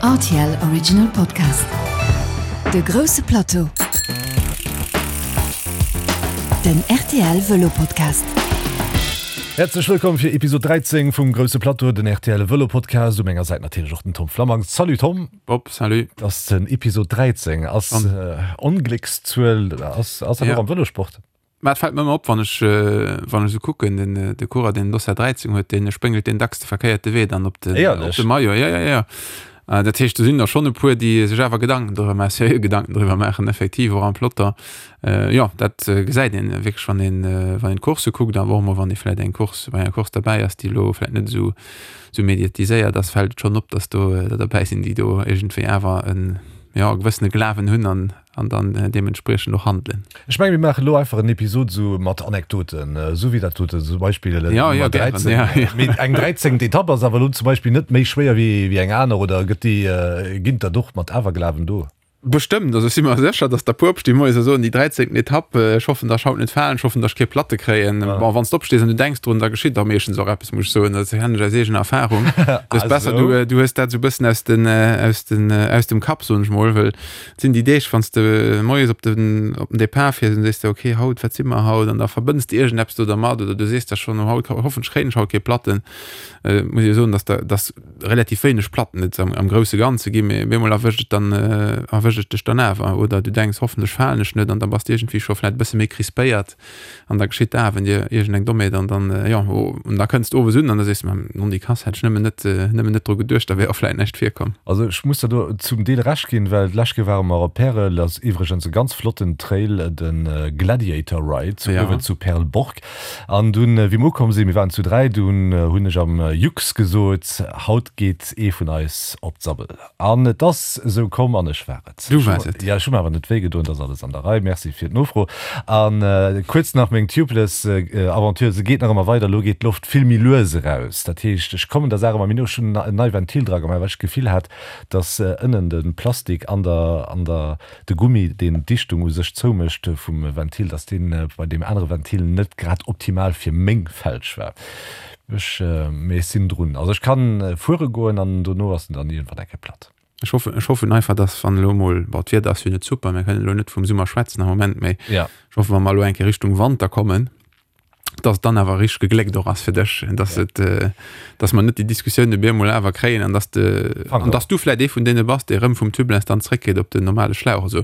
Rtl Original Podcast. De grousse Plateau. Den rtl Vëlo Podcast. Häerzlech wëllkomm fir Episod 13 vum Grousse Plateau, den rtl Vëlo Podcast. U menger Säit natierlech och den Tom Flammang. Salut Tom. Bob, salut. Ass den Episod 13 ass Ongléckszuel, ass ass dat och am Vëlosport? Mä et fält mer ëmmer op, wann ech, wann ech esou kucken, den, de Coureur, deen den Dossard 13 huet, dee spréngelt deen dacks de verkéierte Wee dann op den, op de Maillot. Ja, ja, ja. Dat heescht, do sinn der schonn e puer, déi sech awer Gedanken driwwer maachen, seriö Gedanken driwwer maachen, effektiv och am Peloton. Jo, dat gesäit een wierklech, wann een, wann een d'Coursse kuckt, awer och emol, wann ee vläicht eng Course, bei enger Course derbäi ass, déi elo vläicht net esou, esou mediatiséiert ass, fält et schonn op, datt do der derbäi sinn, déi do iergendwéi awer en, jo, e gewëssene Glawen hunn an, An dann deementspriechend och handelen. Ech mengen, mir maachen elo einfach en Episod esou mat Anekdoten, esou wéi dat doten zum Beispill Ja, ja, Nummer gären, 13. ja, ja. Mee eng dräizéngt Etapp ass awer elo zum Beispill net méi schwéier wéi wéi eng aner, oder gëtt déi, ginn der och mat Awerglawen do? Bestëmmt, also ech si mer sécher, datt der puer opstinn moies a soen, déi dräizéngten Etapp, ech hoffen, datt ech haut net falen, ech hoffen, datt ech kee Platte kréien. Bon, wann s de opstees an du denks drun, da geschitt da meeschtens och eppes, muss ech soen, dat kennen ech aus eegener Erfarung. Et ass besser, du, du hues dat esou e bëssen aus den, aus den, aus dem Kapp, soen ech mol, well Et sinn déi Deeg, wann s de moies op den, op den Depart fiers an sees de, ok, haut, wat si mer haut? An da verbënns de iergendeppes do dermat oder du sees der schonn, oh, haut, hoffentlech kréien ech haut kee Platten. Muss ech jo soen, dass der, dass relativ wéineg Platten et am, am grousse Ganze ginn, mee op eemol erwëscht et dann, erwëscht et dech dann awer. Oder du denks, hoffentlech falen ech net an da bass de iergendwéi scho vläicht e bësse méi crispéiert. An da geschitt dat, wenn dir iergendeng Dommheet an dann, jo, an da kënns de owes un an da sees de, Nondikass, hätt ech nëmmen net, nëmmen net dru geduecht, da wär och vläit näischt virkomm. Also ech muss der do zum Deel Recht ginn, well d'lescht Kéier ware mer op Pärel, ass iwwregens e ganz flotten Trail, de Gladiator Ride zu uewen zu Perleborg. An dunn, wéi mer ukomm sinn, mir waren zu 3, dunn hunn ech am Jux gesot, haut geet ee vun eis op d'Sabbel. An et ass esou komm, an ech war et. Du waars et. Jo, ech hu mer awer net wéi gedoen, et ass alles an der Rei. Merci fir d'Nofro. A kuerz nach meng Tubeless Aventure, se geet nach ëmmer weider, elo geet d'Loft vill méi lues eraus. Dat heescht, ech kommen der Saach ëmmer méi no. Ech hunn en nei Ventil dra gemaach, well ech d'Gefill hat, dass ënnen de Plastik an der, an der, de Gummi, deen d'Dichtung u sech zoumécht vum Ventil, dass dee bei deem anere Ventil net grad optimal fir meng Felg war. Ech, mee ech sinn drun. Also ech kann fuere goen an dono ass en dann iergendwann eng Kéier platt. Ech hoffen, ech hoffen einfach, dass wann elo mol, bon d'Wieder ass jo net super, mir kënnen elo net vum Summer schwätzen am Moment, mee Ja. ech hoffen, wa mer elo eng Kéier Richtung Wanter kommen, dass et dann awer richteg gegléckt och ass fir dech, dass et, dass mer net déi Diskussioun op eemol awer kréien an dass de, an dass du vläit ee vun deene bass, dee rëm vum Tubeless dann zréckgeet op den normale Schlauch. Also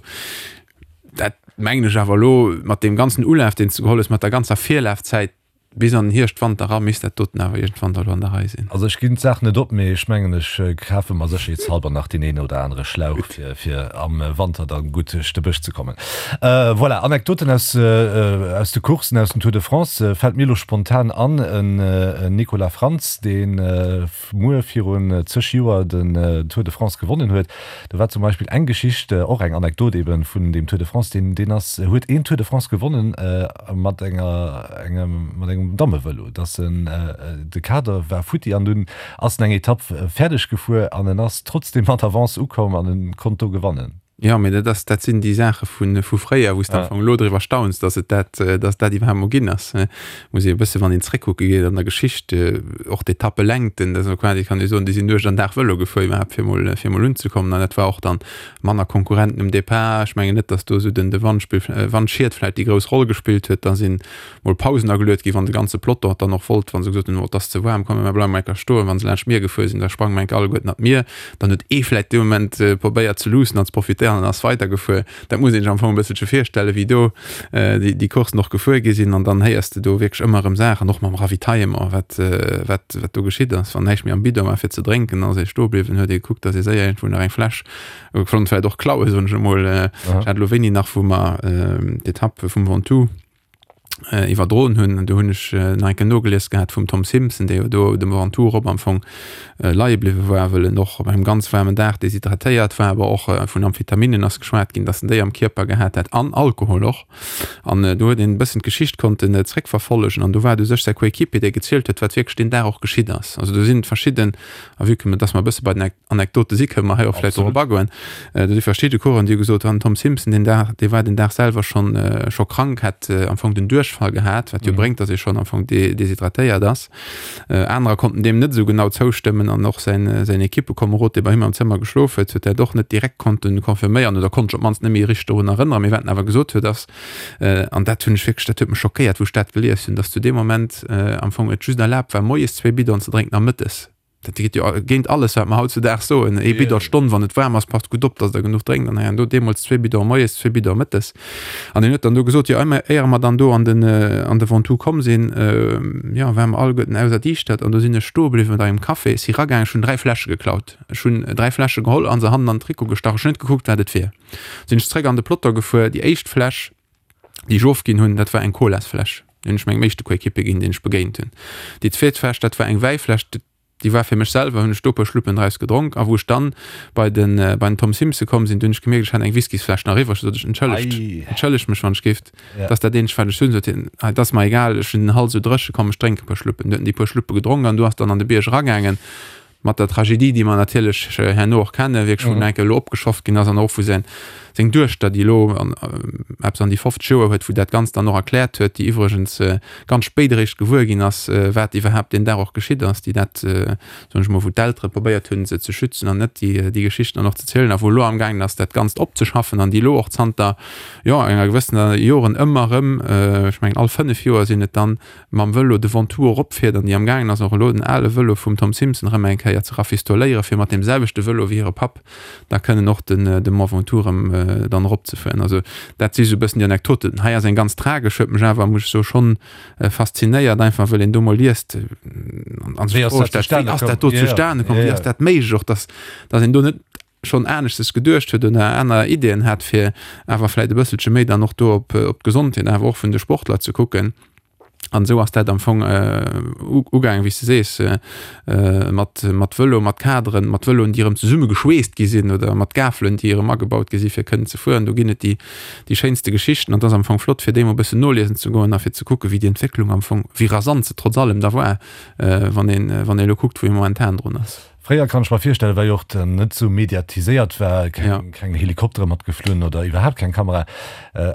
dat mengen ech awer elo mat deem ganzen Ulaf, deen s de geholl hues, mat der ganzer Virlafzäit, Bis an den Hierscht, Wanter era misst dat doten awer iergendwann da lo an der Rei sinn. Also ech ginn d'Saach net op, mee ech mengen ech kafe mer sécherheetshalber nach deen een oder anere Schlauch fir fir am Wanter dann gutt duerch de Bësch ze kommen. Voilà, Anekdoten aus aus de Courssen, aus dem Tour de France fält mir lo spontan an, en Nicolas Frantz deen muer virun zeg Joer den Tour de France gewonnen huet. Do war zum Beispill eng Geschicht, och eng Anekdot eben vun deem Tour de France, deen deen ass huet een Tour de France gewonnen mat enger engem mat engem Dammevëlo, dass en de Kader war futti an dunn ass en eng Etapp fäerdeg gefuer an en ass trotzdem mat Avance ukomm an en konnt do gewannen. Jo, mee dat ass, dat sinn déi Saache vu vu fréier, wou s de am Fong elo driwwer stauns, datt et dat, datt dat iwwerhaapt mol ginn ass. Muss ee e bësse wann een zréckkucke geet an der Geschicht, och d'Etappelängten, dat ass quasi, kann ee soen, déi sinn Nuecht an Dag Vëlo gefuer iwwerhaapt fir mol, fir mol unzekommen. An dat war och dann manner Konkurrenten um Depart. Ech mengen net, datt do esou den de Wandspill, Wandschied vläicht déi grouss Roll gespillt huet. Da sinn mol Pausen ageluet ginn, wann de ganze Peloton dann och wollt, wa se gesot hunn, oh et ass ze waarm, komm mir bleiwe mol eng Kéier stoen. Wa se laanscht d'Mier gefuer sinn, da sprange mer eng Kéier alleguerten an d'Mier. Dann huet ee vläit dee Moment probéiert ze luussen an ze profitéieren an ass weidergefuer. Dat muss een sech am Fong e bësselche virstellen, wéi do déi Courssen och gefuer gi sinn. An dann héiers de do wierklech ëmmer erëm Saachen, och mam Ravitaillement, wat, wat, wat do geschitt ass. Wann näischt méi am Bidon war fir ze drénken, dann ass ee stoe bliwwen, huet ee gekuckt, datt ee séier iergendwou nach eng Fläsch konnt vläit och klauen, soen ech emol. Ech hat elo wéini nach, wou mer d'Etapp vum Ventoux, iwwerdroen hunn. Do hunn ech nach eng Kéier nogelies gehat vum Tom Simpson, dee jo do dem Ventoux erop am Fong leie bliwwe war, wëll en och op engem ganz waarmen Dag deshydratéiert war, awer och vun Amphetaminen ass geschwat ginn, datt en déi am Kierper gehat hätt an Alkohol och. An do huet een e bëssen d'Geschicht konnten zréckverfollegen an do war et u sech säi Coéquipier, dee gezielt huet, wat wierklech deen Dag och geschitt ass. Also do sinn verschidden, a vue que datt mer e bësse bei den Anekdote si kënne mer hei och vläicht drop agoen. Do si verschidde Coureuren, déi hu gesot, den Tom Simpson deen Dag, dee war den Dag selwer schonn scho krank, hat am Fong den Duerch. Duerchfall gehat, wat jo bréngt, datt ee schonn am Fong deshydratéiert ass. Anerer konnten deem net esou genau zoustëmmen an och säin säin Ekippekomerod, dee bei him am Zëmmer geschlof huet, huet dat och net direkt konnte confirméieren oder konnt sech op d'mannst net méi richteg dorun erënneren. Mee wat en awer gesot huet ass, an dat hunn ech wierklech, dat huet mech schockéiert, wou ech dat gelies hunn, datt zu deem Moment am Fong et just erlaabt war, moies zwéi Bidonen ze drénken a mëttes. Dat geet jo géint alles, wat mer hautzedaags soen. Ee Bidon d'Stonn, wann et waarm ass, passt gutt op, datt Der genuch drénkt. An hei an do deemools zwee Bidonen moies, zwee Bidonen mëttes. An hien huet dann do gesot, jo, éier mer dann do an den, an de Ventoux komm sinn, jo, ware mer alleguerten auserdiischtert. An do sinn ech stoe bliwwen mat engem Café, si ragaangen, ech hunn 3 Fläsche geklaut. Ech hunn 3 Fläsche geholl a se hannen an den Trikot gestach. Ech hunn net gekuckt, wat et wier. Sinn ech zréck an de Peloton gefuer. Déi éischt Fläsch, déi ech ofginn hunn, dat war eng Colasfläsch. Déi hunn ech mengem éischte Coéquipier ginn, deen ech begéint hunn. Déi zweet Fläsch, dat war eng Wäifläsch, déi war fir mech selwer, hunn ech do e puer Schluppen draus gedronk. A wou ech dann bei den, bei den Tom Simpson komm sinn, do hunn ech gemierkt, ech hat eng Whiskysfläsch nach iwwreg. Du sot ech, Entschëllegt, entschëllegt mech, wann ech géif, dat ass dat eenzegt, wat ech hunn. Sot hien, Ah, et ass mer egal, ech hunn den Hals esou dréche, komm, ech drénke e puer Schluppen. Du huet en déi puer Schluppe gedronk an du ass dann an de Bierg eragaangen. Mat der Tragedie, déi mer natierlech herno och kennen, wierklech wou enke elo opgeschafft ginn ass an och wou säin, seng Duechter, déi elo eppes an déi 50 Joer huet, wou dat Ganzt dann och erkläert huet, déi iwwregens ganz spéit eréischt gewuer ginn ass, wat iwwerhaapt deen Dag och geschitt ass, déi dat, soen ech mol, wou d'Eltere probéiert hunn, se ze schützen an net déi, déi Geschichten dann och ze zielen a wou elo amgaangen ass, dat Ganzt opzeschaffen an déi elo och zanter, jo, enger gewëssener Joren ëmmer erëm, ech mengen all 5 Joer sinn et dann, mam Vëlo de Ventoux eropfiert an déi am gaangen ass och elo den ale Vëlo vum Tom Simpson erëm eng Kéier ze rafistoléieren, fir mat deem selwechte Vëlo wéi hire Papp da kënnen och den de Mont Ventoux erëm dann eropzefueren. Also dat si sou e bëssen déi Anekdoten. Hei ass eng ganz tragesch, huet mech awer, muss ech soen, schonn faszinéiert, einfach wëll een do mol liest an sech d'Fro stellt, wéi ass dat do zustane komm, wéi ass dat méiglech och, dass dass een do net schonn aneschtes geduecht huet oder aner Ideeën hat, fir awer vläit e bësselche méi dann och do op op d'Gesondheet awer och vun de Sportler ze kucken. An esou ass dat am Fong ugaangen, wéi s de sees, mat mat Vëlo, mat Kaderen, mat Vëloen, déi erëm zesummegeschweesst gi sinn oder mat Gafelen, déi erëm agebaut gi si fir kënnen ze fueren. Do ginn et déi déi schéinste Geschichten an et ass am Fong flott, fir déi mol e bëssen noliesen ze goen a fir ze kucken, wéi déi Entwécklung am Fong, wéi rasant se trotz allem da war, wann een wann ee elo kuckt, wou ee momentan drun ass. Fréier kann ech mer virstellen, well jo och net sou mediatiséiert war, keng, keng Helikoptere mat geflunn oder iwwerhaapt keng Kamera,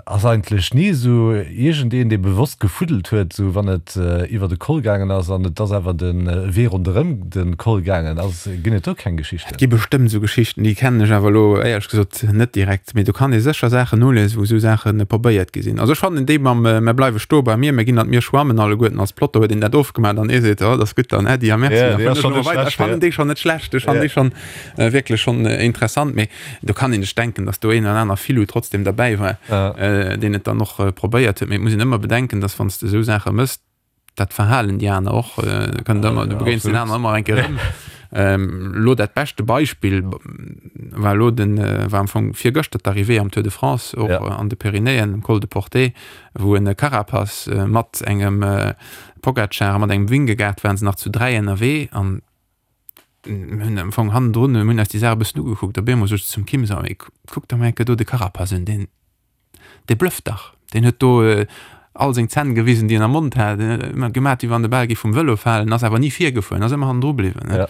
ass eigentlech ni esou iergendeen, dee bewosst gefuddelt huet, sou wann et iwwer de Col gaangen ass an et ass awer de Wee ronderëm de Col gaangen ass. Ginn et do keng Geschichten? Et gi bestëmmt esou Geschichten, déi kennen ech awer elo éierlech gesot net direkt. Mee do kann ee sécher Saachen noliesen, wou esou Saache probéiert gi sinn. Also ech fannen déi mam Mer bleiwe stoe bei mir, mer ginn an d'Mier schwammen alleguerten als Plotter huet een dat ofgemaach an ee seet, oh, dat ass gutt, dann Äddi a Merci. Ja, déi ass schonn net schlecht. Ech fannen déi schonn net schlecht, ech fannen déi schonn wierklech schonn interessant, mee do kann een sech denken, datt do een oder aner Filou trotzdem derbäi war, deen et dann och probéiert huet. Mee et muss een ëmmer bedenken, datt wann s de esou Saache mëss, dat Verhalen déi aner och, kënnt ëmmer, du begéins den aner ëmmer eng Kéier erëm. Elo dat beschte Beispill war elo den, war am Fong virgëschter d'Arrivée am Tour de France, och an de Pyrenäen, um Col de Portet, wou en Carapaz mat engem Pogacar a mat engem Vingegaard waren se nach zu 3 ënnerwee an mir hunn am Fong hannendrun, mir hunn eis déi Saach e bëssen ugekuckt. Op eemol sot ech zum Kim, so, mee kuck der mol eng Kéier do de Carapaz un, deen, dee blëfft dach, deen huet do all seng Zänn gewisen, déi en am Mond hat, deen huet ëmmer gemat, wéi wann de Bal géif vum Vëlo falen, ass awer ni virgefuer, ass ëmmer hannendru bliwwen. Ja.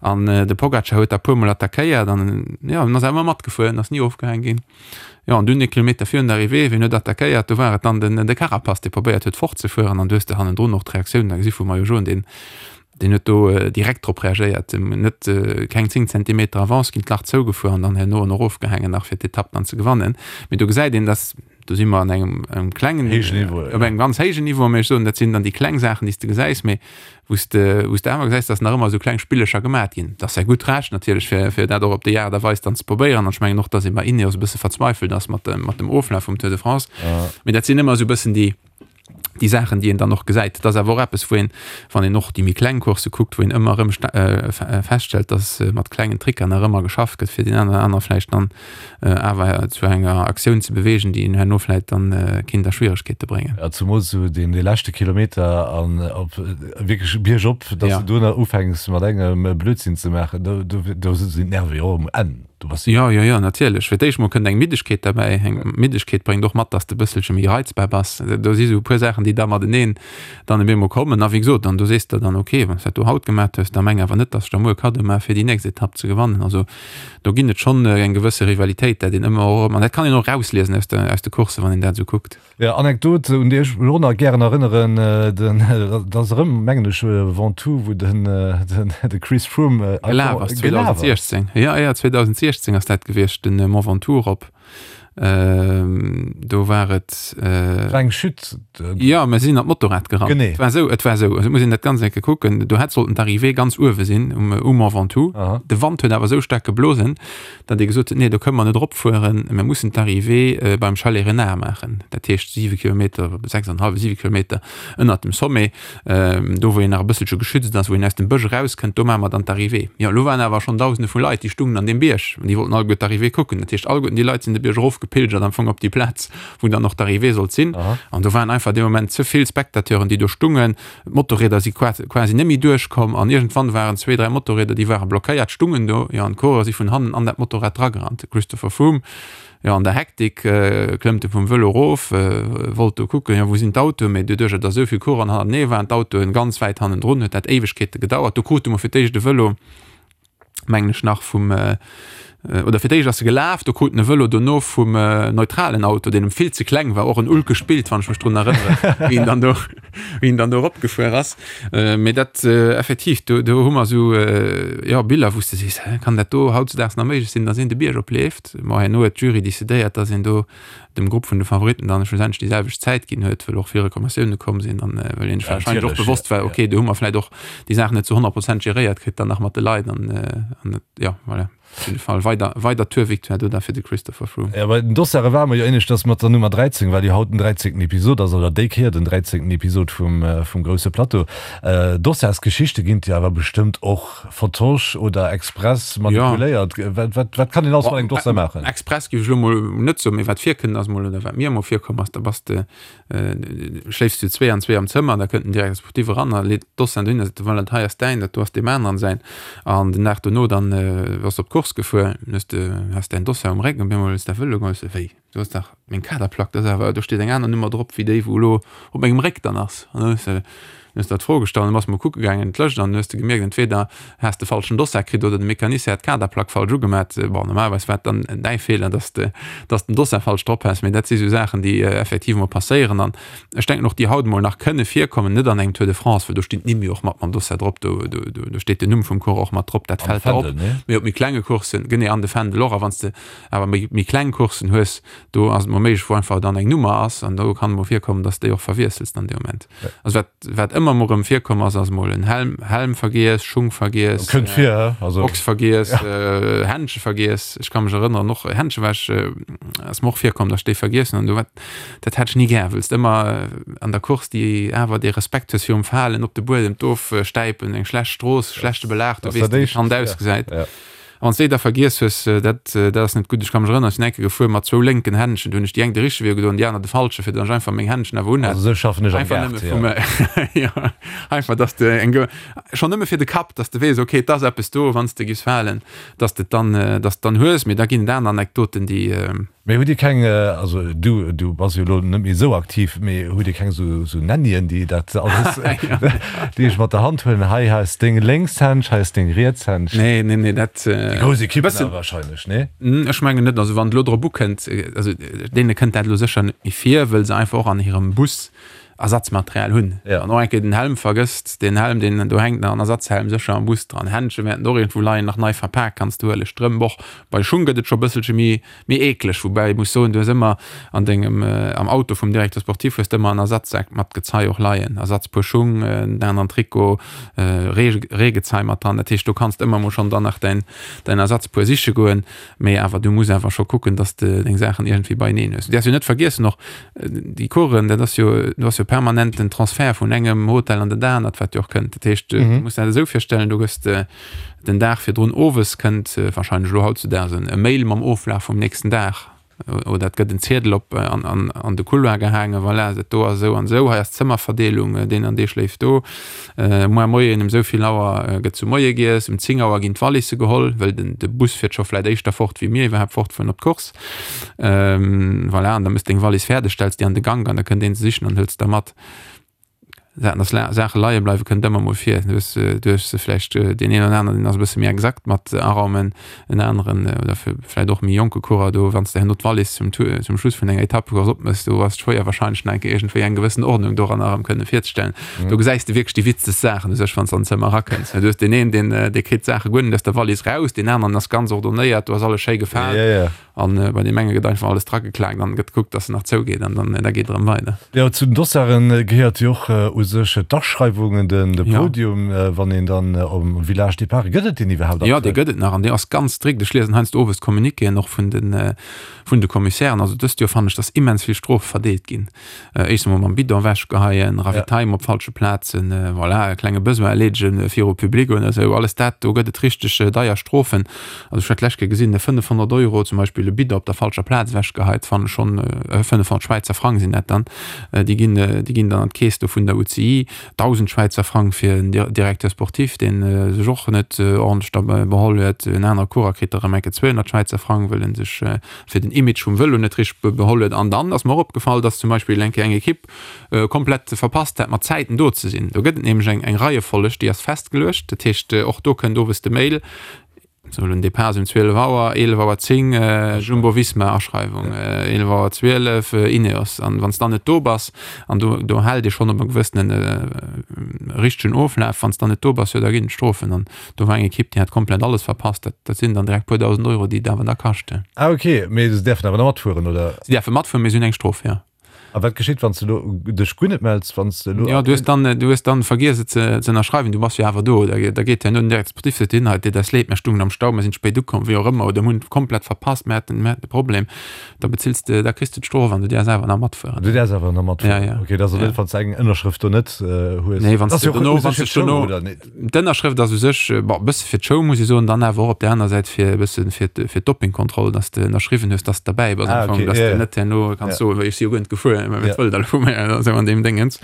An de Pogacar huet da puermol attackéiert an jo, en ass awer ëmmer matgefuer, en ass ni ofgehaang ginn. Jo, an dunn e Kilometer virun der Arrivée, wien huet attackéiert? Do war et dann den de Carapaz, dee probéiert huet fortzefueren an du hues de hannendrun och d'Reaktioun da gesi vum Maillot jaune, deen deen huet do direkt drop reagéiert, net keng 10 Zentimeter Avance ginn, d'Lach zougefuer an dann herno en erofgehaangen nach fir d'Etapp dann ze gewannen. Mee do gesäit een, dass do si mer an engem engem klengen Héijen Niveau, op engem ganz héijen Niveau, mee ech soen, dat sinn dann déi kleng Saachen, déi s de gesäis, mee wou s de wou s de awer gesäis, dass nach ëmmer esou kleng Spillecher gemat ginn. Dat ass säi gutt Recht natierlech, fir fir dat och op déi Aart a Weis dann ze probéieren. An ech mengen och, dass ee bei Ineos e bësse verzweifelt ass mat dem mat dem Oflaf vum Tour de France. Mee dat sinn ëmmer esou e bëssen déi déi Saachen, déi een dann och gesäit. Dat ass awer och eppes, wou een, wann een och déi méi kleng Coursse kuckt, wou een ëmmer erëm feststellt, dass mat klengen Tricker nach ëmmer geschafft gëtt, fir deen einen oder anere vläicht dann awer zu enger Aktioun ze beweegen, déi een herno vläicht dann kinnt a Schwieregkeete bréngen. Jo, zemools esou deen dee leschte Kilometer an op wierklech biergop, dass du do nach ufänks mat engem Blödsinn ze maachen, do do sinn d'Nerve jo och um Enn. Du bass. Jo, jo, jo, natierlech. Fir d'éischt mol kënnt eng Middegkeet derbäi. Eng Middegkeet bréngt och mat, dass de e bësselche méi reizbar bass. Do si sou e puer Saachen, déi da mateneen dann op eemol kommen. A wéi gesot, dann do sees de dann, ok, wann s dat do haut gemat hues, da meng awer net, dass ech der muer Kaddo maache fir déi nächst Etapp ze gewannen. Also do ginn et schonn eng gewësse Rivalitéit, dat een ëmmer och erëm, an dat kann een och erausliesen aus de, aus de Courssen, wann een dat esou kuckt. Jo, Anekdot, un déi ech mech och nach gären erënneren, den, dat ass erëm, mengen ech, Ventoux, wou den, den, de Chris Froome Gelaf ass, 2016. Jo, jo, 2016 ass dat gewiescht, den Mont Ventoux erop. Do war et. War eng Chute. Jo, mä si sinn an d'Motorrad gerannt. Genee. Et war esou, et war esou, also et muss een dat ganz eng Kéier kucken, do hätt sollten d'Arrivée ganz uewe sinn, um, um Mont Ventoux. De Wand huet awer esou staark geblosen, datt ee gesot huet, nee, do kënne mer net eropfueren, mir mussen d'Arrivée beim Chalet Renard maachen, dat heescht siwe Kilometer, sechsanenhallef, siwe Kilometer ënnert dem Sommet, do wou een nach e bësselche geschützt ass, wou een aus dem Bësch erauskënnt, do maache mer dann d'Arrivée. Jo, elo waren awer schonn Dausende vu Leit, déi stungen an deem Bierg an déi wollten alleguer d'Arrivée kucken. Dat heescht, alleguerten déi Leit sinn de Bierg erofgepilgert am Fong op déi Plaz, wou dann och d'Arrivée sollt sinn. An do waren einfach dee Moment ze vill Spectateuren, déi do stungen. D'Motorrieder si quasi net méi duerchkomm an iergendwann waren zwee, dräi Motorrieder, déi ware blockéiert, stungen do, jo, an d'Coureurer si vun hannen an dat Motorrad dragerannt. De Christopher Froome, jo, an der Hektik klëmmt e vum Vëlo erof, wollt do kucken, jo, wou sinn d'Autoen, mee doduercher, datt esou vill Coureuren hannertenee waren, d'Autoen ganz wäit hannendrun, huet dat Éiwegkeete gedauert. Do krute mer fir d'éischt e Vëlo, mengen ech nach vum oder fir d'éischt ass e gelaf, do krut en e Vëlo dono vum neutralen Auto, deen em vill ze kleng war, och en ulkegt Bild, wann ech mech drun erënneren, wéi en dann do, wéi en dann do eropgefuer ass. Mee dat effektiv, do, do hu mer esou, jo, Biller, wou s de sees, hä, kann dat do hautzedaags nach méiglech sinn, datt een de Bierg opleeft? Bon, herno huet d'Jury decidéiert, datt een do dem Grupp vun de Favoritten dann schlussendlech déi selwecht Zäit ginn huet, well och vill Reklamatioune komm sinn an well een sech warscheinlech och bewosst war, okay, do hu mer vläicht och déi Saach net zu 100 Prozent geréiert kritt dann nach mat de Leit an an jo, voilà. Op jidde Fall weider weider Tour-Victoire do da fir de Christopher Froome. Jo, bei den Dossare ware mer jo éinescht, dass mat der Nummer 13, well jo haut den 13. Episod ass, oder déi Kéier den 13. Episod vum vum grousse Plateau. Dossarsgeschichte ginn et jo awer bestëmmt och. Vertosch oder express manipuléiert? Wat, wat, wat kann een alles mat engem Dossier maachen? Express géif ech elo mol net soen, mee wat virkënnt ass mol, oder wat mir emol virkomm ass, da bass de, schléifs du zwee an zwee am Zëmmer, da kënnt den Directeur sportif eran a leet d'Dossieren dohin a seet, voilà, dat hei ass däin, dat do ass deem aneren säin. An den Dag dono dann bass de op d'Course gefuer, hues de, has däin Dossier um Réck an op eemol hues de dat Vëlo geholl, hues de, wéi, do ass dach meng Kaderplack, dat ass awer, do steet eng aner Nummer drop wéi déi, wou elo op mengem Réck dann ass. An dann hues de, hues der d'Fro gestallt, dann bass de mol kucke gaangen, d'Lëscht, an dann hues de gemierkt, entweder has de falschen Dossard kritt oder de Mecanicien hat d'Kaderplack falsch ugemat. Bon, normalerweis war et dann däi Feeler, dass de, dass den Dossard falsch drop has, mee dat si sou Saachen, déi effektiv mol passéieren an ech denken och, déi haut mol nach kënne virkommen, net an engem Tour de France, well do stinn d'Nimm jo och mat mam Dossard drop, do, do, do steet den Numm vum Coureur och mat drop, dat fält der op. Mee op méi klenge Courssen, genee, an de Fändel och, a wann s de awer méi, méi kleng Courssen hues, do ass et mol méiglech, wou einfach dann eng Nummer ass an do kann et mol virkommen, dass de déi och verwiessels dann dee Moment. Also wat, wat ëmmer mol erëm virkomm ass, ass mol en Helm, Helm vergiess, Schung vergiess, Kënnt vir, hä? Also. Box vergiess, ja. Händche vergiess. Ech ka mech erënneren, och Händche war ech, ass mer och virkomm, dass ech déi vergiessen hunn. Do wat, dat hat ech ni gär, wëlls de ëmmer an der Course déi awer dee Respekt hues virum Falen, op de Buedem d'ofstäipen, eng schlecht Strooss, schlechte Belag, du weess net, wéi d'Hand ausgesäit. Ja. A wann s de déi da vergiess hues, dat, dat ass net gutt. Ech ka mech erënneren, ech sinn eng Kéier gefuer mat zwou lénken Händschen. Do hunn ech déi eng de richtege Wee ugedoen, déi aner de falsche, fir datt ech einfach meng Händschen awer unhat. Also esou schaffen ech am Einfach nëmme vum, jo, einfach datt s de eng, schonn nëmme fir de Kapp, datt s de weess, okay, et ass eppes do, wann s de giffs falen, datt s de et dann, datt s de et dann hues. Mee da ginn et aner Anekdoten, déi. Mee hutt Dir keng, also du, du bass jo elo net méi esou aktiv, mee hutt Dir keng esou, esou Nannien, déi dat alles, déi iech mat der Hand huelen, hei ass deng lénks Händsch, hei ass deng riets Händsch? Nee, nee, nee, dat. Déi grouss Ekippen awer wahrscheinlech, nee? Ech mengen net. Also wann et elo drop ukënnt, also deene kënnt dat elo sécher net méi vir, wëll se einfach och an hirem Bus Ersatzmaterial hunn. Wann och eng Kéier den Helm vergësst, deen Helm, deen do hänkt nach en Ersatzhelm sécher am Bus dran. Händche wäerten och iergendwou leien, nach nei verpak, kanns de huelen. Strëmp och. Bei Schung gëtt et scho bësselche méi, méi eekleg, woubäi ech muss soen, du hues ëmmer an dengem, am Auto vum Directeur sportif hues de ëmmer en Ersatzsak mat Gezei och leien, Ersatzpuer Schung, en aneren Trikot, Ree, Reegezei mat dran. Dat heescht, do kanns de ëmmer mol schonn dann nach däin, däin Ersatzpuer siche goen. Mee awer du muss awer scho kucken, dass de deng Saachen iergendwéi beieneen hues. Du däerfs jo net vergiessen och, déi Coursen, dat ass jo, do ass jo permanent den Transfert vun engem Hotel an dat anert, wat jo och kënnt. Dat heescht, du muss dat esou virstellen, du gëss den Dag virdrun owes kënnt wahrscheinlech elo hautzudaags e Mail mam Oflaf vum nächsten Dag. Oder et gëtt en Ziedel op an, an, an de Couloir gehaangen, voilà, dat do ass esou an esou, hei ass d'Zëmmerverdeelung, deen an dee schléift do. Muer Moien um esou vill Auer gëtt zu Moie giess, um 10 Auer ginn d'Wallisse geholl, well den, de Bus fiert scho vläit éischter fort, wéi mir iwwerhaapt fortfueren op d'Course. Voilà, an da méchs deng Wallis fäerdeg, stells déi an de Gank an da kënnt een se sichen an hëlt se da mat. Saachen, dass Saache leie bleiwe kënnt ëmmer mol vir. Du hues, du hues vläicht deen een oder aneren, deen ass e bësse méi exakt mat Araumen, en aneren oder vläicht och méi jonke Coureur do, wann s de herno d'Wallis zum Tour, zum Schluss vun enger Etappecourse opmëss, do ass et schwéier wahrscheinlech nach eng Kéier iergendwéi eng gewëssen Ordnung doranner erëm kënne virzestellen. Do gesäis de wierklech déi witzegst Saachen u sech, wann s de an d'Zëmmer erakënns. Du hues deen een, deen, dee kritt d'Saache guer net aus der Wallis raus, deen aneren ass ganz ordonnéiert, do ass alles schéi gefaalt. An bei deem enge gëtt einfach alles drageklaakt an gëtt gekuckt, dass en nach zougeet an dann da geet et erëm weider. Jo, zu den Dossaren gehéiert jo och u sech d'Aschreiwungen, den de Podium, wann een dann um Village Départ, gëtt et deen iwwerhaapt aktuell? Jo, dee gëtt et nach an dee ass ganz strikt. Ech liesen heiansdo owes d'Communiquéen och vun de vun de Commissairen. Also dëst Joer fannen ech, dass immens vill Strofe verdeelt ginn. Éischt emol mam Bidon ewechgeheien, Ravitaillement op falsche Plazen, voilà, e klenge Besoin erleedegen viru Public oder esou, alles dat, do gëtt et richteg deier Strofen. Also ech hat d'lescht Kéier gesinn, 500 Euro zum Beispill e Bidon op der falscher Plaz ewechgeheit, fannen ech schonn, 500 Schwäizer Frang sinn dat dann, déi ginn, déi ginn dann an d'Keess do vun der UCI, 1.000 Schwäizer Frang fir en Directeur sportif, dee sech och net ordentlech da beholl huet, en anere Coureur kritt da erëm eng Kéier 200 Schwäizer Frang, wëll en sech fir den Image vum Vëlo net richteg beholl huet. An dann ass mer och opgefall, dass zum Beispill eng Kéier eng Ekipp komplett verpasst hat, mat Zäiten do ze sinn. Do gëtt et nämlech eng eng Reiefolleg, déi ass festgeluecht. Dat heescht, och do kënnt owes de Mail, sou den Depart ass um 12 Auer, 11 Auer 10 Jumbo-Visma Aschreiwung, 11 Auer 12 Ineos. An wann s dann net do bass, an do do hält ee schonn op e gewëssene richtegen Oflaf, wann s dann net do bass, jo da ginn et Strofen. An Do war eng Ekipp, déi hat komplett alles verpasst. Dat, dat sinn dann direkt puer dausend Euro, déi et awer da kaschten. Ah ok, mee se däerfen awer nach matfueren, oder? Se däerfe matfueren, mee se hunn eng Strof, jo. A wat geschitt, wann s de elo dech guer net mells, wann s de elo. Jo, du hues dann, du hues dann vergiess et ze, ze ënnerschreiwen, du bass jo awer do. Da, da geet herno den Directeur sportif, seet hin, hei, et deet eis leed, mir stungen am Stau, mir sinn spéit ukomm, wéi och ëmmer, oder mir hunn komplett verpasst, mir haten, mir haten e Problem. Da bezills de, da kriss de d'Strof an du däerfs awer nach matfueren. Du däerfs awer nach matfueren? Ja, ja. Ok, dat ass also net, wann s de eng Ënnerschrëft do net hues. Nee, wann s de dono, wann s de dono. D'Ënnerschrëft ass u sech, bon, e bësse fir d'Show, muss ech soen, dann awer och op där aner Säit fir e bësse fir fir d'Dopingkontroll, dass de ënnerschriwwen hues, dass de derbäi bass am Fong, dass de net herno kanns soen, ech si jo guer net gefuer, mä wat wëllt der elo vu mir, oder esou an deem Déngens.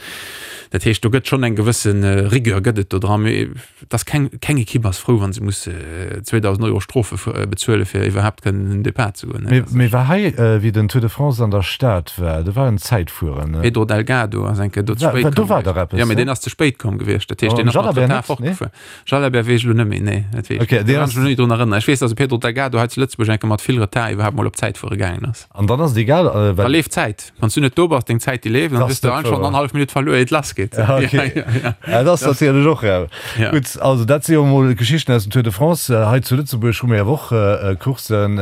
Dat heescht, do gëtt schonn eng gewësse Rigueur gëtt et do dran, mee et ass keng, keng Ekipp ass frou, wa se muss 2.000 Euro Strofe bezuele fir iwwerhaapt kënnen un den Depart ze goen. Mee war hei, wéi den Tour de France an der Stad war, do war en Zäitfueren, ne? Pedro Delgado ass eng Kéier do ze spéit komm. Do war dach eppes, ne? Jo, mee deen ass ze spéit komm gewiescht. Dat heescht, deen ass mat Retard fortgefuer. Jalabert weess ech elo net méi, nee, dat weess ech net. Do kann ech mech elo net drun erënneren. Ech weess, dass de Pedro Delgado hei zu Lëtzebuerg eng Kéier mat vill Retard iwwerhaapt mol op d'Zäitfuere gaangen ass. An dann ass et egal, well. Da leeft d'Zäit. Wann s du net do bass, deng Zäit déi leeft, an dann hues du einfach schonn annerhallef Minutt verluer, ier et lass geet. Ja, okay. Ja, dat ass natierlech och rau. Gutt, also dat si jo emol Geschichten aus dem Tour de France. Hei zu Lëtzebuerg hu mir awer och Courssen.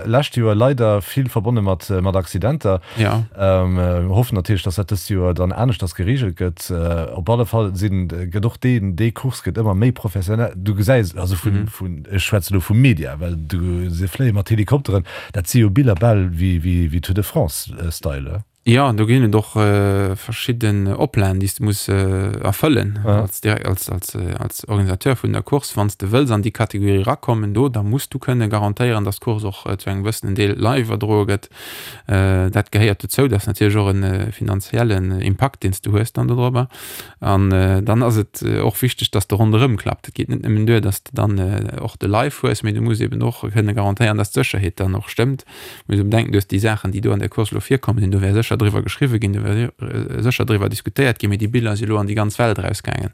Lescht Joer leider vill verbonne mat Accidenter. Ja. Mir hoffen natierlech, dass dat dëst Joer dann aneschters gereegelt gëtt. Op alle Fall sinn, gëtt och deen, déi Course gëtt ëmmer méi professionell. Du gesäis, also vun, vun, ech schwätze elo vum Media, well du, se fléie mat Helikopteren, dat si jo Biller bal wéi, wéi, wéi Tour de France-Style. Jo, do ginn et och verschidden Oplagen, déi s de muss erfëllen als, als, als, als Organisateur vun der Course. Wann s de wëlls an déi Kategorie erakommen do, da muss du kënne garantéieren, dass d'Course och zu engem gewëssenen Deel live iwwerdroe gëtt. Dat gehéiert dozou. Dat ass natierlech och e finanziellen Impakt, deen s du hues dann dodrobber. An dann ass et och wichteg, dass de ronderëm klappt. Et geet net nëmmen duer, dass de dann och de Live hues, mee du muss eben och kënne garantéieren, dass d'Sécherheet dann och stëmmt. Muss ee bedenken, du hues déi Saachen, déi do an der Course elo virkomm sinn, do wär sécher driwwer geschriwwe ginn, do wär sécher driwwer diskutéiert ginn, mee déi Biller si elo an déi ganz Welt erausgaangen.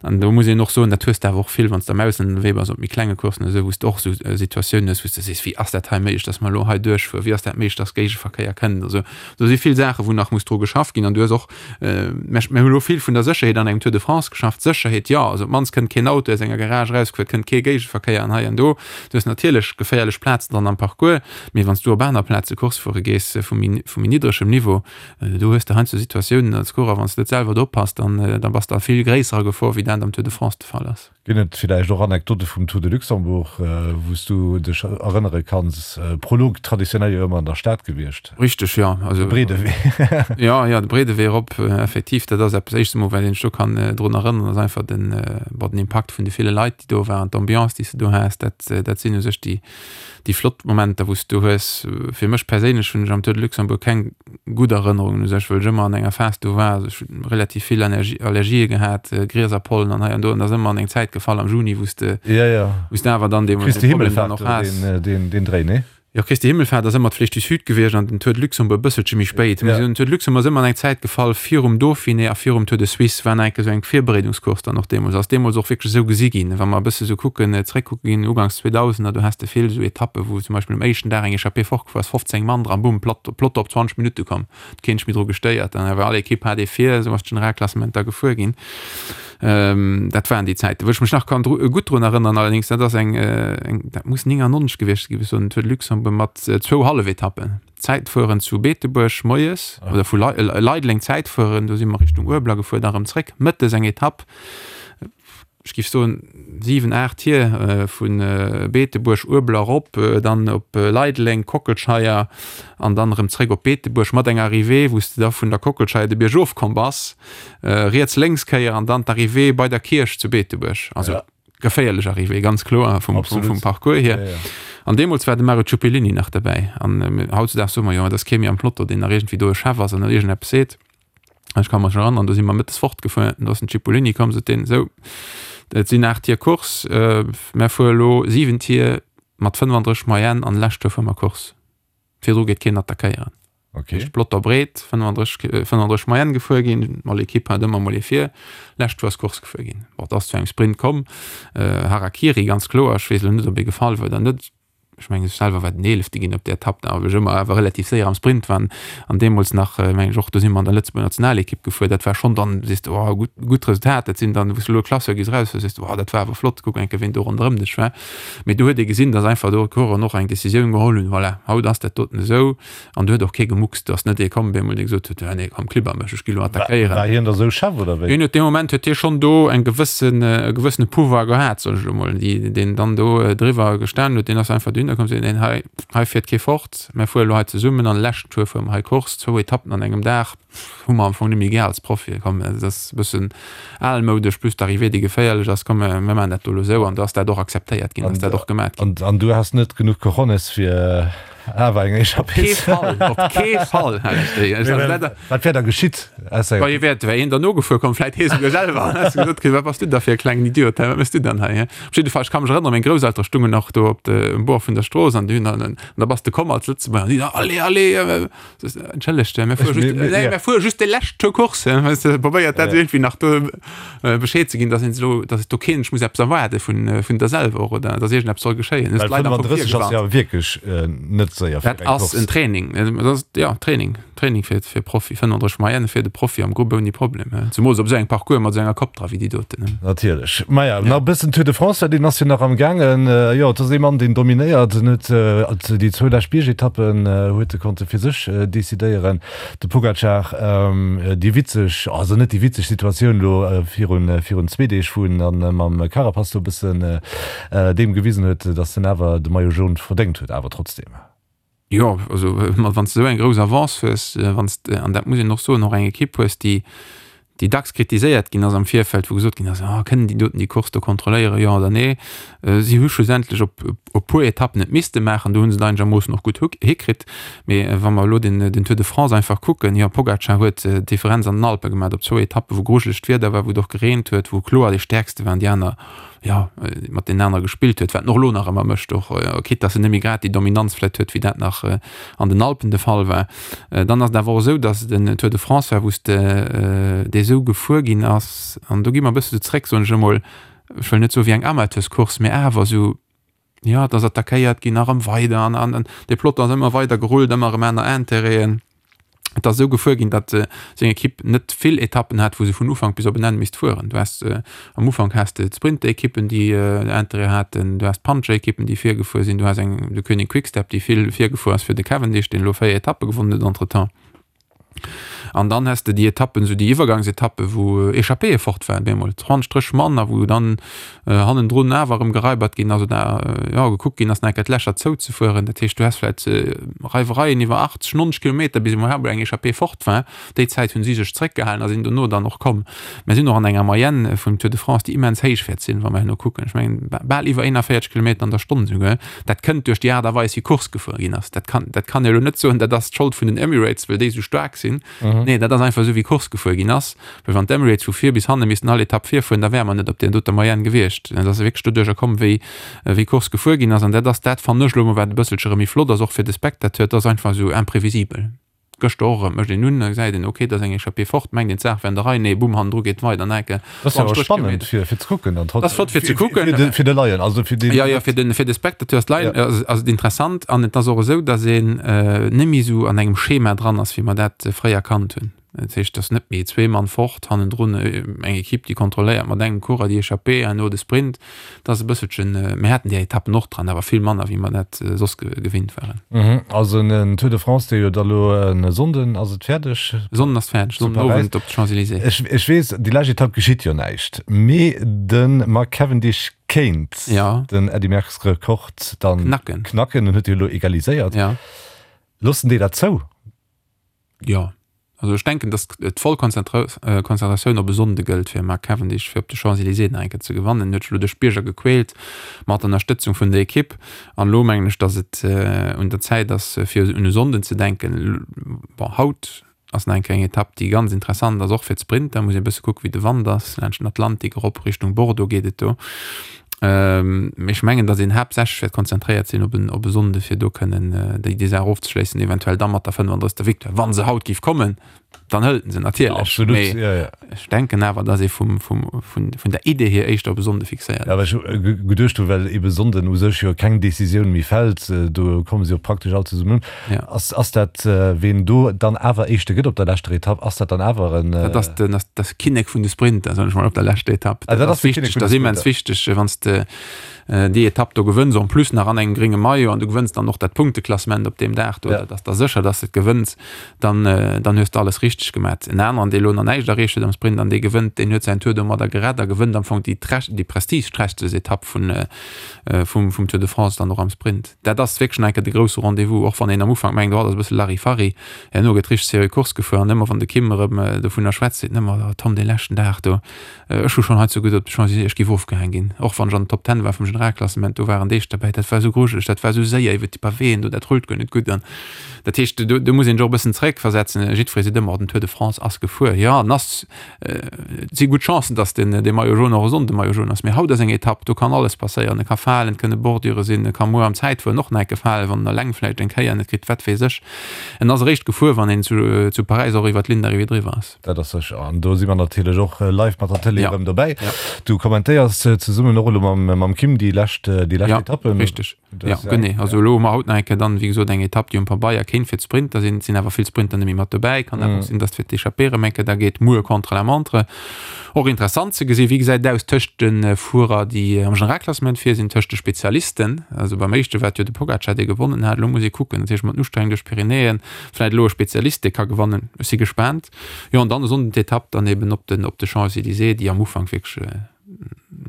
An do muss een och soen, dat hues de awer och vill, wann s de am Ausland ënnerwee bass, op méi klenge Coursen oder esou, wou s de och esou Situatiounen hues, wou s de sees, wéi ass dat hei méiglech, datt mer elo hei duerchfueren, wéi ass dat méiglech, datt Géigeverkéier kënnt. Also do si vill Saachen, wou nach muss dru geschafft ginn. An du hues och, mir hu elo vill vun der Sécherheet an engem Tour de France geschafft, Sécherheet, jo, also op d'mannst kënnt keen Auto aus enger Garage erausgefuer, et kënnt kee Géigeverkéier an hei an do. Du hues natierlech geféierlech Plazen dran am Parcours, mee wann s du op aner Plaze Course fuere gees vu méi vu méi niddregem Niveau, do hues de heiansdo Situatiounen als Coureur, wann s de net selwer do oppass, dann da bass de a vill gréisserer Gefor, wéi dat am Tour de France de Fall ass. Ginn et villäicht och Anekdote vum Tour de Luxembourg, wou s du dech erënnere kanns? Prolog traditionell jo ëmmer an der Stad gewiescht. Richteg, jo. Also, de breede Wee. Jo, jo, de breede Wee erop, effektiv. Dat ass eppes, éischts emol, wat een sech do kann drun erënneren, ass einfach den, bon, den Impakt vun de ville Leit, déi do waren, d'Ambiance, déi s de do has, dat, dat sinn u sech déi, déi flott Momenter, wou s du hues. Fir mech perséinlech hunn ech am Tour de Luxembourg keng gutt Erënnerungen u sech, well ech ëmmer an enger Phas do war, also ech hunn relativ vill Allergie, Allergië gehat, Grieserpollen an hei an do, an dat ass ëmmer an eng Zäit gefall am Juni, wou s de, wou s de awer dann deemools dee Problem dann och has. Deen, deen Dréi, nee? Jo, Christi Himmelfahrt ass ëmmer d'Flèche du Sud gewiescht an den Tour de Luxembourg e bësselche méi spéit. Mee den Tour de Luxembourg ass ëmmer an eng Zäit gefall virum Dauphiné a virum Tour de Suisse, war nach eng Kéier esou eng Virbereedungscourse dann och deemools. Ass deemools och wierklech esou gesi ginn. Wa mer e bësse sou kucken, zréckkucke ginn, uganks Zweedausender, do has de vill esou Etappen, wou zum Beispill um éischten Dag eng Echappée fortgefuer ass, 15 Mann dran, bumm, platt, Peloton op 20 Minutte komm, huet keen sech méi dru gestéiert. Dann awer all Ekipp hat ee vir, esou ass d'Generalklassement da gefuer ginn. Dat waren déi Zäiten, wou ech mech nach kann dru, gutt drun erënneren. Allerdéngs, dat ass eng, eng, dat muss 99 gewiescht gi sinn, Tour de Luxembourg mat zwou Hallefetappen. Zäitfueren zu Beetebuerg moies oder vu Leideleng Zäitfueren, do si mer Richtung Uebler gefuer, da rëm zréck. Mëttes eng Etapp, ech géif soen 7, 8 Tier vu Beetebuerg, Uebler erop, dann op Leideleng, Kockelscheier an dann erëm zréck op Beetebuerg mat enger Arrivée, wou s de da vun der Kockelscheier de Bierg ofkomm bass, riets, lénks Kéier an dann d'Arrivée bei der Kierch zu Beetebuerg. Also geféierlech Arrivée, ganz kloer vum, vum, vum Parcours hier. Ja, ja. An deemools war de Mario Ciuppellini nach derbäi. An äh, hautzudags soe mer jo, et ass kee méi am Peloton, deen nach iergendwéi do e Chef ass an iergendeppes seet. Ech ka mech erënneren, do si mer mëttes fortgefuer, do ass den Cipollini komm, sot deen, sou, et sinn 8 Tier Course, äh, mär fuere lo 7 Tier mat 35 Moyenne an lescht Tour fuere mer Course. Virdru geet keen attackéieren. Okay. Heescht Plotter breet, 35, 35 Moyenne gefuer ginn, all Ekipp hat ëmmer mol ee vir, lescht Tour ass Course gefuer ginn. Bon, et ass zu engem Sprint komm, Harakiri ganz kloer, ech weess elo net, ob ee gefall war oder net, ech mengen ech selwer war den Eelefte ginn op där Etapp, da well ech ëmmer awer relativ séier am Sprint war an deemools nach, mengen ech och, do si mer an der Lëtzebuerger Nationalekipp gefuer, dat war schonn dann, sees de, oh gutt, gutt Resultat, dat sinn dann, wou s de elo Classeur gees eraus, sees de, oh dat war awer flott, kuck eng Kéier ween do ronderëm dech war. Mee do huet ee gesinn, datt einfach do d'Coureuren och eng Decisioun geholl hunn, voilà, haut ass dat doten esou. An do huet och kee gemuckst. Do ass net ee komm, op eemol, dee gesot huet, jo nee, komm, klibber mech, ech gi lo attackéieren. War hien da sou Chef oder wéi? Hien huet dee Moment huet hie schonn do eng gewëssen, e gewëssene Pouvoir gehat, soen ech elo mol, déi, deen dann do driwwer gestanen huet. Deen ass einfach dohinner komm, seet, neen, hei, hei fiert kee fort, mär fuere lo hei zesummen an de leschten Tour fuere mer hei Course, zwou Etappen an engem Dag. Hu mer am Fong net méi gär als Profi. Komm, dat ass e bëssen almoudesch, plus d'Arrivée, déi geféierlech ass. Komm, mir maachen dat do elo esou. An do ass dat och akzeptéiert ginn, ass dat och gemat ginn. An du has net genuch Cojones, fir awer eng Echappée ze. Op kee Fall, op kee Fall hat ech déi. Ech hat dat. Wat wär da geschitt? Bei hie wär, wär een derno gefuer komm, vläit hie souguer selwer. An häss gesot kritt, Wat bass du da fir e klengen Idiot, hä? Wat méchs du dann hei, hä? Op jidde Fall, ech ka mech erënneren, meng Grousseltere stungen nach do op de, um Bord vun der Strooss an déi hunn dann, an da bass de komm als Lëtzebuerger an déi da, Allez, allez! Entschëllegt, mir fuere just, nee, mir fuere just de lescht Tour Course. Weißt du, probéiert dat irgendwie nach do äh, Bescheed ze ginn, dass een elo, dass do keen muss eppes erwaarde vun, äh, vun der selwer och oder dass iergendeppes soll geschéien. Well 35 ass ja wierklech äh, net séier fir eng Course. Dat ass en Training, dat ass, ja, Training, Training fir, fir Profi, 35 Moyenne fir de Profi am Grupp ouni Problem. Zemools op esou engem Parcours mat esou enger Kopp dra wéi déi doten. Natierlech. Maja, nach e bëssen Tour de France, well deen ass jo nach am gaangen. Jo, et ass ee Mann, deen dominéiert. En huet déi zwou lescht Biergetappen huet e konnte fir sech decidéieren. De Pogacar, déi witzeg, also net déi witzeg Situatioun elo virun virun zwee Deeg, wou en dann mam Carapaz do e bëssen deem gewisen huet, datt en awer de Maillot jaune verdéngt huet, awer trotzdeem. Jo, also wann s de esou eng grouss Avance hues, wann s de, an dat muss een och soen, och eng Ekipp hues, déi, déi dacks kritiséiert ginn ass am Virfeld, wou gesot ginn ass, ah kënnen déi doten déi Course do kontrolléieren, jo oder nee. Si hu schlussendlech op e puer Etappen et misste maachen, do hu se et einegermoossen och gutt hikritt. Mee wa mer elo den, den Tour de France einfach kucken, jo Pogacar huet d'Differenz an den Alpe gemaach op zwou Etappen, wou grujelegt Wieder war, wou et och gereent huet, wou kloer dee Stäerkste waren, déi aner jo, mat deenen anere gespillt huet, wat en och elo nach ëmmer mécht, och quitte dass en net méi grad déi Dominanz vläicht huet, wéi dat nach an den Alpen de Fall war. Dann ass et awer och esou, dass et en Tour de France war, wou s de, dee esou gefuer ginn ass, an do gi mer e bësse sou zréck, soen ech emol, ech wëll net soe wéi eng Amateurscourse, mä awer esou, jo, et ass attackéiert ginn a rëm weider an an de Peloton ass ëmmer weider gerullt, ëmmer erëm aner Intérêten. Et ass esou gefuer ginn, datt seng Ekipp net vill Etappen hat, wou se vun Ufank bis op en Enn misst fueren. Du has am Ufank has de d'Sprinterekippen, déi Interêt haten, du has d'Puncherekippen, déi virgefuer sinn, du has eng de Koenig Quick-Step, déi vill virgefuer ass fir de Cavendish, deen elo 4 Etappe gewonnen huet entretemps. An dann häss de déi Etappen, esou déi Iwwergangsetappe wou Echappéeë fort waren, bemol 20, 30 Mann a wou dann hannendrun awer erëm geraibert ginn ass oder jo gekuckt ginn ass nach eng Kéier d'Lächer zouzefueren. Dat heescht, du häss vläicht Reiwereien iwwer 80, 90 Kilometer bis emol eng Echappée fort war. Déi Zäit hunn si sech zréckgehalen a sinn dono dann och komm. Mir sinn och an enger Moyenne vum Tour de France, déi immens héich wäert sinn, wa mer herno kucken. Ech mengen, bal iwwer 41 Kilometer an der Stonn esouguer. Dat kënnt duerch déi Aart a Weis, wéi Course gefuer ginn ass. Dat kann, dat kann ee elo net soen, dat ass d'Schold vun den Emirates, well déi esou staark sinn. Nee, dat ass einfach esou, wéi Course gefuer ginn ass. Well wann d'Emirates vu vir bis hanne missten all Etapp virfueren, da wäre mer net op där doter Moyenne gewiescht. Dat ass wierklech doduercher komm, wéi, wéi Course gefuer ginn ass. An dat ass dat, fannen ech elo emol, wat e bësselche erëm méi flott ass, och fir de Spectateur. Et ass einfach esou imprévisibel. Gëschter och erëm, mécht een un, da gesäit een, ok, et ass eng Echappée fort, mengt een, d'Saach wär an der Rei, nee, bumm, hannendru geet et weider, enke Dat ass jo awer spannend fir fir ze kucken dann trotzdem. Dat ass flott fir ze kucken. Fir de fir de Laien, also fir deen. Jo, jo, fir den fir de Spectateur ass d'Laien ass ass et interessant an et ass och esou, datt een net méi esou an engem Schema dran ass, wéi mer dat fréier kannt hunn. Dat heescht, et ass net méi zwee Mann fort, hannendrun eng Ekipp, déi kontrolléiert mat engem Coureur déi Echappée, herno de Sprint. Dat ass e bësselchen, mir haten déi Etappen och dran, awer vill manner, wéi mer dat soss gewinnt waren. Also en Tour de France, dee jo da lo e Sonnden ass et fäerdeg. E Sonnden ass fäerdeg, Sonnden Owend op de Champs-Élysées. Ech, ech weess, déi lescht Etapp geschitt jo näischt, mee de Mark Cavendish kéint den Eddy Merckx Rekord dann knacken. Knacken, en huet jo elo egaliséiert. Loossen déi dat zou? Jo, also ech denken, datt d'voll Konzentratioun op e Sonnde gëllt fir Mark Cavendish, fir op de Champs-Élysées nach eng Kéier ze gewannen. En huet sech elo duerch d'Bierger gequält mat Ënnerstëtzung vun der Ekipp. An elo mengen ech, datt et un der Zäit ass, fir un e Sonnden ze denken. Bon, haut ass nach eng Kéier eng Etapp, déi ganz interessant ass, och fir d'Sprinter. Muss ee bësse kucken, wéi de Wand ass. Laanscht den Atlantik erop Richtung Bordeaux geet et do. Mee ech mengen, datt een haaptsächlech wäert konzentréiert sinn op en, op e Sonnde fir do kënnen déi, déi Saach ofzeschléissen, eventuell da mat der 35. Victoire. Wa se haut géif kommen, dann hëlt en se natierlech. Absolut, Mee ja, ja. ech denken awer, datt ee vum, vum, vun, vun der Idee hier éischter op e Sonnde fixéiert Ja, well ass. ech geduecht hu, well ebe Sonnden u sech jo keng Decisioun méi fält, do komme se jo praktesch all zesummen un. Ja. Ass, ass dat, ween do dann awer Éischte gëtt op der leschter Etapp, ass dat dann awer en. Dat ass den, ass das Kinnek vun de Sprinter, soen ech mol, op der leschter Etapp. Ah, dat ass de Kinnek vun de Dat ass immens Sprinter. wichteg, wann s de déi Etapp do gewënns, en plus nach an engem grénge Maillot an du gewënns dann och dat Punkteklassement op deem Dag do, Ja. dat ass da sécher, dass de et gewënns, dann, dann hues de alles richteg gemat. En aneren, dee elo nach näischt erreecht huet am Sprint an dee gewënnt, deen huet säin Tour domadder gerett a gewënnt am Fong déi, déi prestigeträchtegst Etapp vun, vum, vum Tour de France dann och am Sprint. Dat ass wierklech nach eng Kéier de grousse Rendez-vous, och wann een am Ufank mengt, oh, dat ass e bësse Larifari. Herno gëtt richteg seriö Course gefuer an ëmmer wann de Kim erëm dovunner schwätzt, seet en ëmmer, oh Tom, dee leschten Dag do, ech hu schonn hei zu gutt op de Champs-Élysées, ech géif ofgehaang ginn. Och wann ech an den Top Ten war vum Generalklassement, do waren Deeg derbäi, dat war esou grujeleg, dat war esou séier iwwer déi Pavéen do, dat rullt guer net gutt. An dat heescht, do, do muss een sech och e bëssen zeréckversetzen. Jiddweree seet ëmmer, oh, den Tour de France ass gefuer. Jo, en ass Et si gutt Chancen, datt den dee Maillot jaune och e Sonnde Maillot jaune ass. Mee haut ass eng Etapp, do kann alles passéieren. E ka falen, et kënne Bordure sinn, e ka muer am Zäitfueren och nach eng Kéier falen, wann en eleng vläicht eng Kéier net kritt, wat weess ech. En ass eréischt gefuer, wann een zu zu Paräis och iwwer d'Ligne d'arrivée driwwer ass. Dat ass sécher. An do si mer natierlech och live mat der Tëlee erëm dobäi. Du kommentéiers zesummen och elo mam mam Kim déi lescht déi lescht Etappen. Jo, richteg. Ja, genee. Also elo hu mer haut nach eng Kéier dann, wéi gesot, eng Etapp, déi um Pabeier kéint fir d'Sprinter sinn. Et sinn awer vill Sprinter net méi mat dobäi. Kann awer och sinn, datt fir d'Echappée erëm eng Kéier da geet. Muer Contre-la-montre. Och interessant ze gesinn, wéi gesäit et aus tëscht de Fuerer, déi am Generalklassement vir sinn, tëscht de Spezialisten. Also beim éischte war et jo de Pogacar, dee gewonnen hat. Elo muss ee kucken, natierlech mat den Ustrengung duerch d'Pyrenäen, vläicht elo e Spezialist, dee ka gewannen. Ech si gespaant. Jo, an dann e Sonnden d'Etapp dann eben op den, op de Champs-Élysées, déi am Ufank wierklech,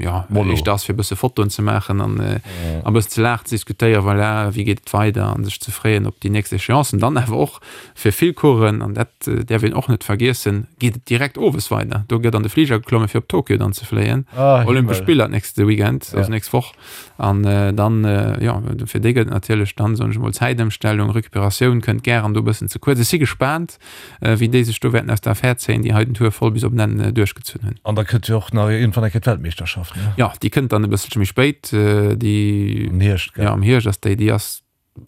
ja éischter ass fir bësse Fotoen ze maachen an äh, a bëssen ze laachen, ze diskutéieren, voilà, wéi geet et weider an sech ze freeën op déi nächst Échéancen. Dann awer och fir vill Coureuren, an dat äh, däerf een och net vergiessen, geet et direkt owes weider. Do gëtt an de Fliger geklomme fir op Tokio dann ze fléien. Ah, Olympesch Spiller d'nächste Weekend, also Ja. nächst Woch. An äh, dann äh, ja, fir déi gëtt natierlech dann, soen ech mol, Zäitëmstellung, Recuperatioun kënnt gären do e bëssen ze kuerz. Ech si gespaant. wéi déi sech do wäerten aus der Affär zéien, déi hei den Tour voll bis op den Enn duerchgezunn hunn. An da kënnt jo och nach iergendwann eng Kéier d'Weltmeeschterschaft, ne? Jo, déi kënnt dann e bësselche méi spéit, déi. Am Hierscht, gell? Jo, am Hierscht ass déi. Déi ass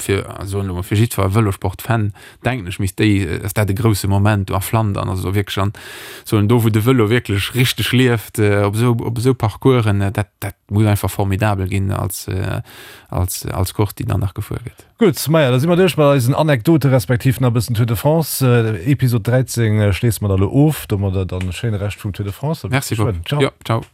fir, soen elo mol, fir jiddwer Vëlosport-Fan, denken ech, misst déi, ass dat e grousse Moment do a Flandern, also do wierklech an, soen, do wou de Vëlo wierklech richteg lieft, op esou, op esou Parcoursen, dat, dat muss einfach formidabel ginn als, als, als Course, déi dann nach gefuer gëtt. Gutt, maja, da si mer duerch mat eisen Anekdote respektiv nach e bëssen Tour de France. Episod 13 schléisse mer da lo of. Domadder dann e schéine Rescht vum Tour de France. Merci Bob. Ciao. Jo, ciao.